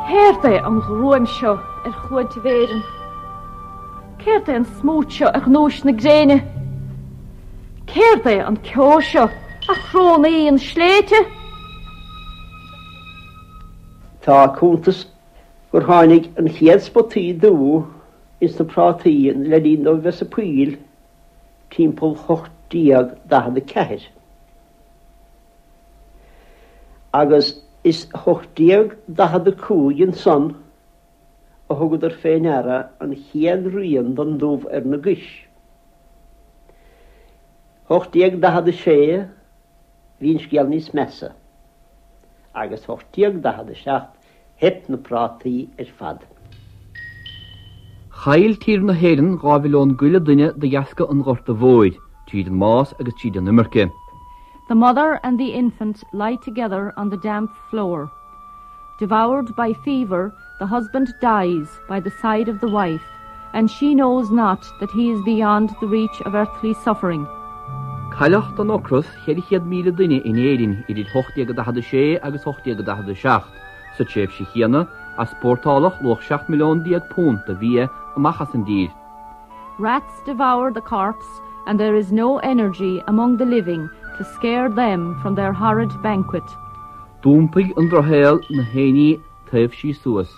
Céard é an ghruaim seo ar chluaintíbh Éireann? Céard é an smúit seo ar ghnúis na gréine? Céard é an ceo seo a chrónaíonn sléibhte? Tá cuntas gur tháinig an chéad spotaí dubha ins na prátaí le linn dóibh bheith sa poill timpeall 1844. Agus is 1845 ansan a thugadar fé ndeara an chéad rian den dubh ar na gais. 1846 bhí an scéal níos measa, agus 1847 theip na prátaí ar fad. Chaill tír na hÉireann 2 mhilliún go leith duine de dheasca an Ghorta Mhóir, tríd an mbás agus tríd an imirce. The mother and the infant lie together on the damp floor. Devoured by fever, the husband dies by the side of the wife, and she knows not that he is beyond the reach of earthly suffering. Cailleadh den ocras 400,000 duine in Éirinn idir 1846 agus 1847. Sa tréimhse chéanna, easpórtáladh luach £17 milliún de bhia amach as an dtír. Rats devour the corpse and there is no energy among the living to scare them from their horrid banquet. D'iompaigh an drochshaol na héinní taobhsí suas.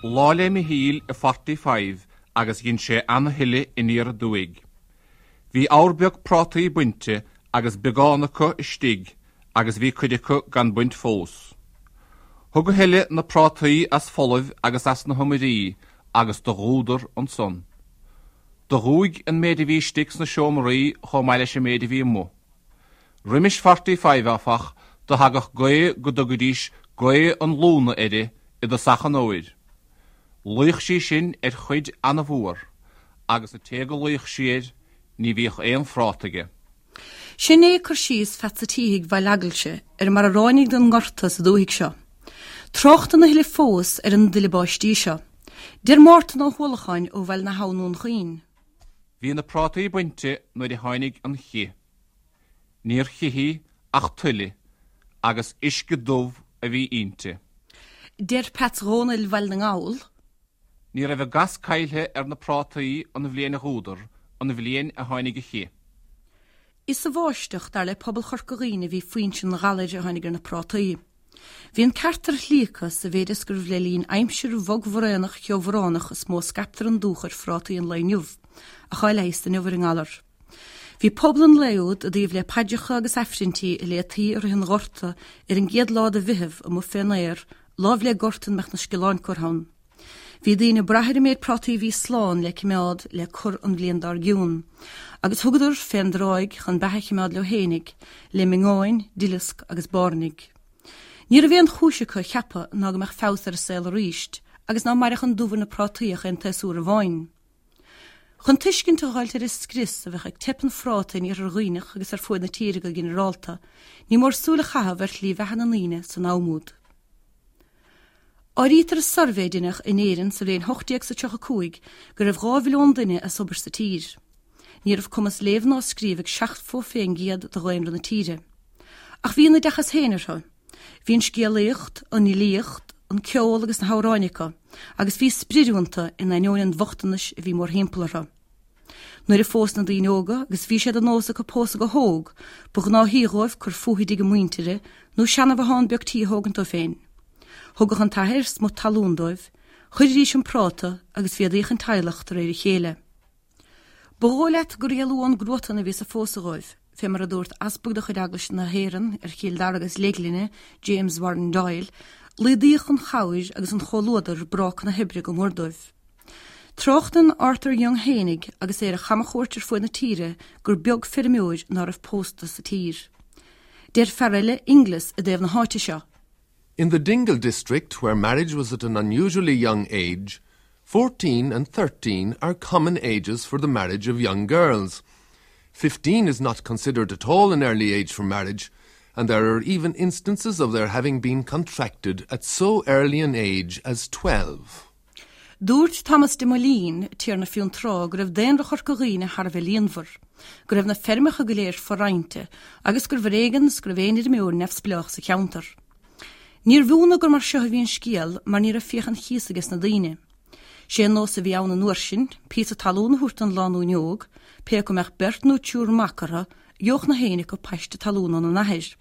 Lá 'le Michíl i Forty-five agus dhein sé ana-thuile aniar aduaidh. Bhí abhar beag prátaí bainte agus beagán acu istigh agus bhí cuid acu gan baint fós. Thug a thuile na prátaí as folamh agus as na hiomairí agus do dhúdar ansan. Do dhúigh an méid a bhí istigh sna seomraí chomh maith leis an méid a bhí amuigh. Roimis Forty-five, áfach, do thagadh gaoth go dtugaidís gaoth an lúna uirthi i dtosach an fhómhair. Luíodh sí sin ar chuid ana-mhór, agus an té go luíodh sí air, ní bhíodh aon phráta aige. Sin é cur síos Pheatsa Títhigh Bhaile Eaglaise ar mar a ráinig an ngorta sa dúthaigh seo. Tráchtann a thuilleadh fós ar an dtuile báistí seo. Deir Mártan Ó hUallacháin ó Bhaile na hAbhann Dún Chaoin. Bhí na prátaí bainte nuair a tháinig an chith. Níor chith í ach tuile agus uisce dubh a bhí inti. Deir Peats Dhónaill Bhaile na nGall. Ní raibh a gas caillthe ar na prátaí an bhliain a dhúdar, an bhliain a tháinig an chith. Is sa bháisteach, dar le pobal Chorca Dhuibhne a bhí foinse an ghalair a tháinig ar na prátaí. Bhí an ceart ar shlí acu sa mhéid is gurbh le linn aimsir bhog bhraonach cheobhránach is mó a scaiptear an dúch ar phrátaí an lae inniu, ach tá leigheas inniu ar an ngalar. Bhí pobal an lae úd i dtaobh le paidreacha agus aifrinntí a léitaí i rith an Ghorta ar an gcéad lá de Mheitheamh amuigh fén aer, láimh le gort ina mbeadh na sciolláin curtha ann. Bhí daoine ag brath ar an méid prátaí a bhí slán le cimeád le cur an bhliain dár gcionn, agus thugadar fén dtráigh chun beatha a chimeád leo fhéinig, le miongáin, duileasc agus bairnigh. Ní raibh aon chúis acu a cheapadh ná go mbeadh feabhas ar an saol aríst, agus ná mairfeadh an dubh ar na prátaí ach aon tséasúr amháin. Chun tuiscint a dh'fháilt ar an scrios a bheadh ag teip an phráta in Iarthar Dhuibhneach agus ar fuaid na tíre go ginearálta, ní mór súil a chaitheamh ar shlí bheatha na ndaoine san am úd. Áirítear i suirbhé a deineadh in Éirinn sa bhliain 1835 go raibh 2 mhilliún duine as obair sa tír. Ní raibh cumas léamh ná scríobh ag 70% de dhaonra na tíre. Ach bhí a n-oideachas féin orthu. Bhí an scéalaíocht, an fhilíocht, an ceol agus na hamhráin acu, agus bhí spriod iontu in ainneoin an bhochtanais a bhí mórthimpeall orthu. Nuair a phós na daoine óga, agus bhí sé de nós acu pósadh go hóg, ba ghnáthaí dhóibh cur fúthu i dtigh a muintire nó seanbhothán beag tí a thógaint dóibh féin. Thugadh an t-athair smut talún dóibh, chuiridís an práta agus mhéadaíodh an teaghlach de réir a chéile. Ba dhóigh leat gur éalú ón gcruatan a bhí sa phósadh dhóibh, fé mar a dúirt easpag de chuid Eaglais na hÉireann ar Chill Dara agus Leithghlinne, James Warren Doyle, laghdaíodh an chabhair agus an chomhluadar bráca na hoibre go mór dóibh. Tráchtann Arthur Young fhéinig agus é ar a chamachuairt ar fuaid na tíre gur beag feirmeoir ná raibh pósta sa tír. Deir fear eile, Inglis, i dtaobh na háite seo. In the Dingle district, where marriage was at an unusually young age, 14 and 13 are common ages for the marriage of young girls. 15 is not considered at all an early age for marriage, and there are even instances of their having been contracted at so early an age as 12. Dúirt Thomas de Moleen, Tiarna Fionntrá, go raibh daonra Chorca Dhuibhne thar a bheith líonmhar, go raibh na feirmeacha go léir fo-roinnte agus gurbh ar éigean is go raibh aon fheirmeoir neamhspleách sa cheantar. Níorbh ionadh gur mar seo a bhí an scéal mar ní raibh fiacha an chíosa aige sna daoine. Sé an nós a bhí ann an uair sin, píosa talún a thabhairt don lánúin óg, pé acu mbeadh beirt nó triúr mac orthu, gheobhadh na héinne acu paiste talún óna n-athair.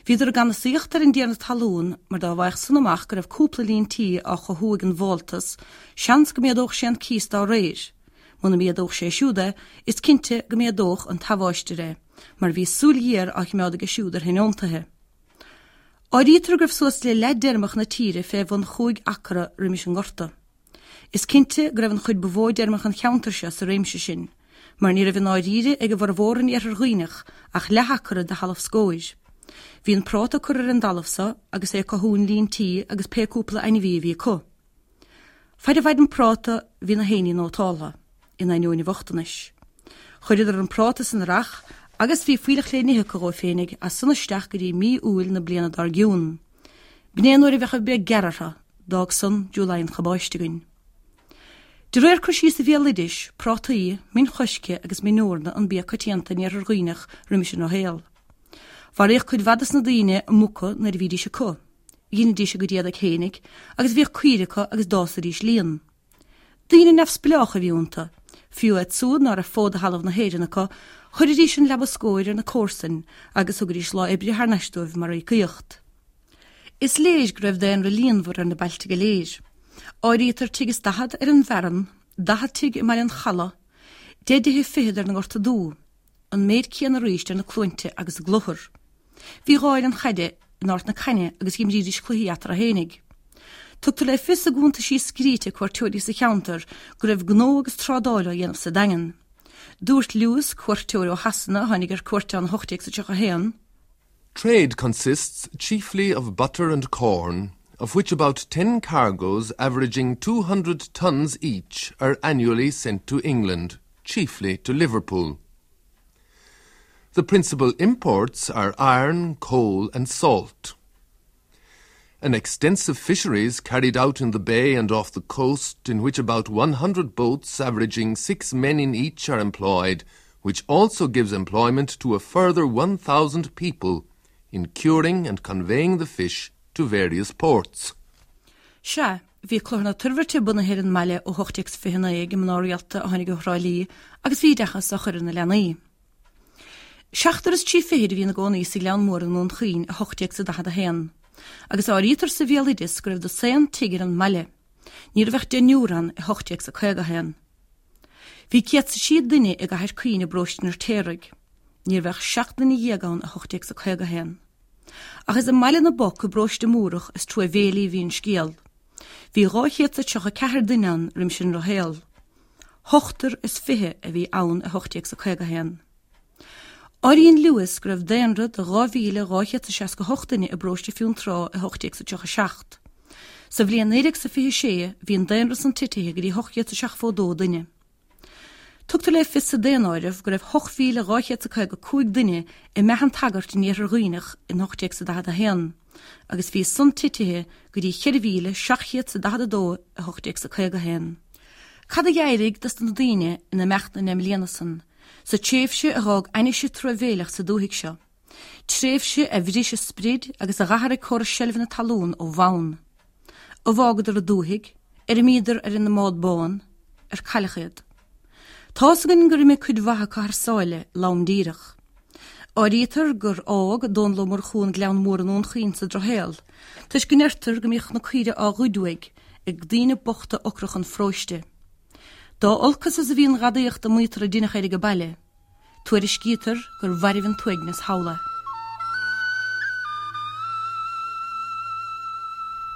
Bhíodar ag ganasaíocht ar an dtiarna talún mar dá bhfaigheadh san amach go raibh cúpla líon tí á chothú ag an bhfáltas, seans go méadódh sé an cíos dá réir. Muna méadódh sé siúd é, is cinnte go méadódh an tabháistir é, mar bhí súil ghéar á chimeád aige siúd ar thionóntaithe. Áirítear go raibh suas le leath d'fheirmeacha na tíre fé bhun chúig acra roimis an ngorta. Is cinnte go raibh an chuid ba mhó d'fheirmeacha an cheantair seo sa réimse sin, mar ní raibh i ndáiríre ag a bhformhór in iarthar Dhuibhneach ach leath-acra de thalamh scóir. Bhí an práta curtha ar an dtalamh so agus é ag cothú an líon tí agus pé cúpla ainmhí a bhí acu. Faid a mhair an práta bhí na héinní nótáltha, in ainneoin an bhochtanais. Chuireadar an práta san earrach agus bhí fuílleach le n-ithe acu dhóibh féinig as san isteach go dtí mí Iúil na bliana dár gcionn. B'in é nuair a bheadh an bhreith gearr orthu, d'fhág san July an chabáiste againn. De réir cur síos an bhéaloidis, prátaí, min choiscthe agus min eorna an bia coitianta in iarthar Dhuibhneach roimis an ndrochshaol. Mharaíodh cuid mhaith dos na daoine a muca nuair a bhídís acu. Dheinidís a gcuid éadaigh fhéinig agus bhíodh caoire acu agus d'fhásaidís líon. Daoine neamhspleách a bhí iontu. Fiú iad súd ná raibh fód de thalamh na hÉireann acu, chuiridís an leaba scóir ar na comharsain agus thugaidís lá oibre thar n-ais dóibh mar íocaíocht. Is léir go raibh daonra líonmhar ar na bailte go léir. Áirítear tigh is 40 ar an bhFearann, 40 tigh i mBaile an Chalaidh, deich dtithe fichead ar na Gorta Dubha, an méid céanna arís ar na Cluainte agus i gClochar. Bhí dhá fhoireann chaide in Ard na Caithne agus dh'imrídís cluichí eatarthu fhéinig. Tugtar le fios i gcuntaisí scríte cuairteoirí sa cheantar go raibh gnó agus trádáil á dhéanamh sa Daingean. Dúirt Lewis, cuairteoir ó Shasana a tháinig ar cuairt ann i 1831, Trade consists chiefly of butter and corn, of which about 10 cargoes averaging 200 tons each are annually sent to England, chiefly to Liverpool. The principal imports are iron, coal and salt. An extensive fisheries carried out in the bay and off the coast in which about 100 boats averaging six men in each are employed, which also gives employment to a further 1,000 people in curing and conveying the fish to various ports. Sea, bhí Clochar na Toirbhirte bunaithe ar an mbaile ó 1829 ag mná rialta a tháinig ó Thrá Lí agus bhí oideachas á chur ar na leanaí. Seachtar is trí fichid a bhí ina gcónaí sa Ghleann Mór i nDún Chaoin i 1841, agus áirítear sa bhéaloideas go raibh dosaen tigh ar an mbaile. Ní raibh ach deichniúr ann i 1851. Bhí 103 duine i gCathair Caoin i bparóiste an Fheirtéaraigh. Ní raibh ach 17 nduine ann i 1851. Ach is i mBaile na bPoc i bparóiste Múrach is truamhéilí a bhí an scéal. Bhí 234 duine ann roimis an ndrochshaol. Ochtar is 20 a bhí ann i 1851. Áiríonn Lewis go raibh daonra de 2,268 duine i bparóiste Fionntrá i 1837. Sa bhliain 1926 bhí an daonra san titithe go dtí 872 duine. Tugtar le fios sa daonáireamh go raibh 8,255 duine i mBeatha an tSagairt in Iarthar Dhuibhneach in 1841 agus bhí san titithe go dtí 4,742 i 1851. Cad a d'éirigh dos na daoine in imeacht na ndeich mbliana san, sa tréimhse a dh'fhág ainnise truamhéileach sa dúthaigh seo, tréimhse a bhris a sprid agus a dh'athraigh córas seilbhe na talún ó bhonn? Ar fhágadar an dúthaigh, ar imíodar ar an mbád bán, ar cailleadh iad? Tá's againn gur imigh cuid mhaith acu thar sáile, lom díreach. Áirítear gur fhág Dónall Ó Murchú an Gleann Mór i nDún Chaoin sa Drochshaol, toisc go ndeirtear go mbíodh na caoire á ghoid uaidh ag daoine bochta ocracha an pharóiste. Dá olcas is a bhí an ghadaíocht a maítear a deineadh air age baile, tuairiscítear gur mhairbh an t-uaigneas thall é.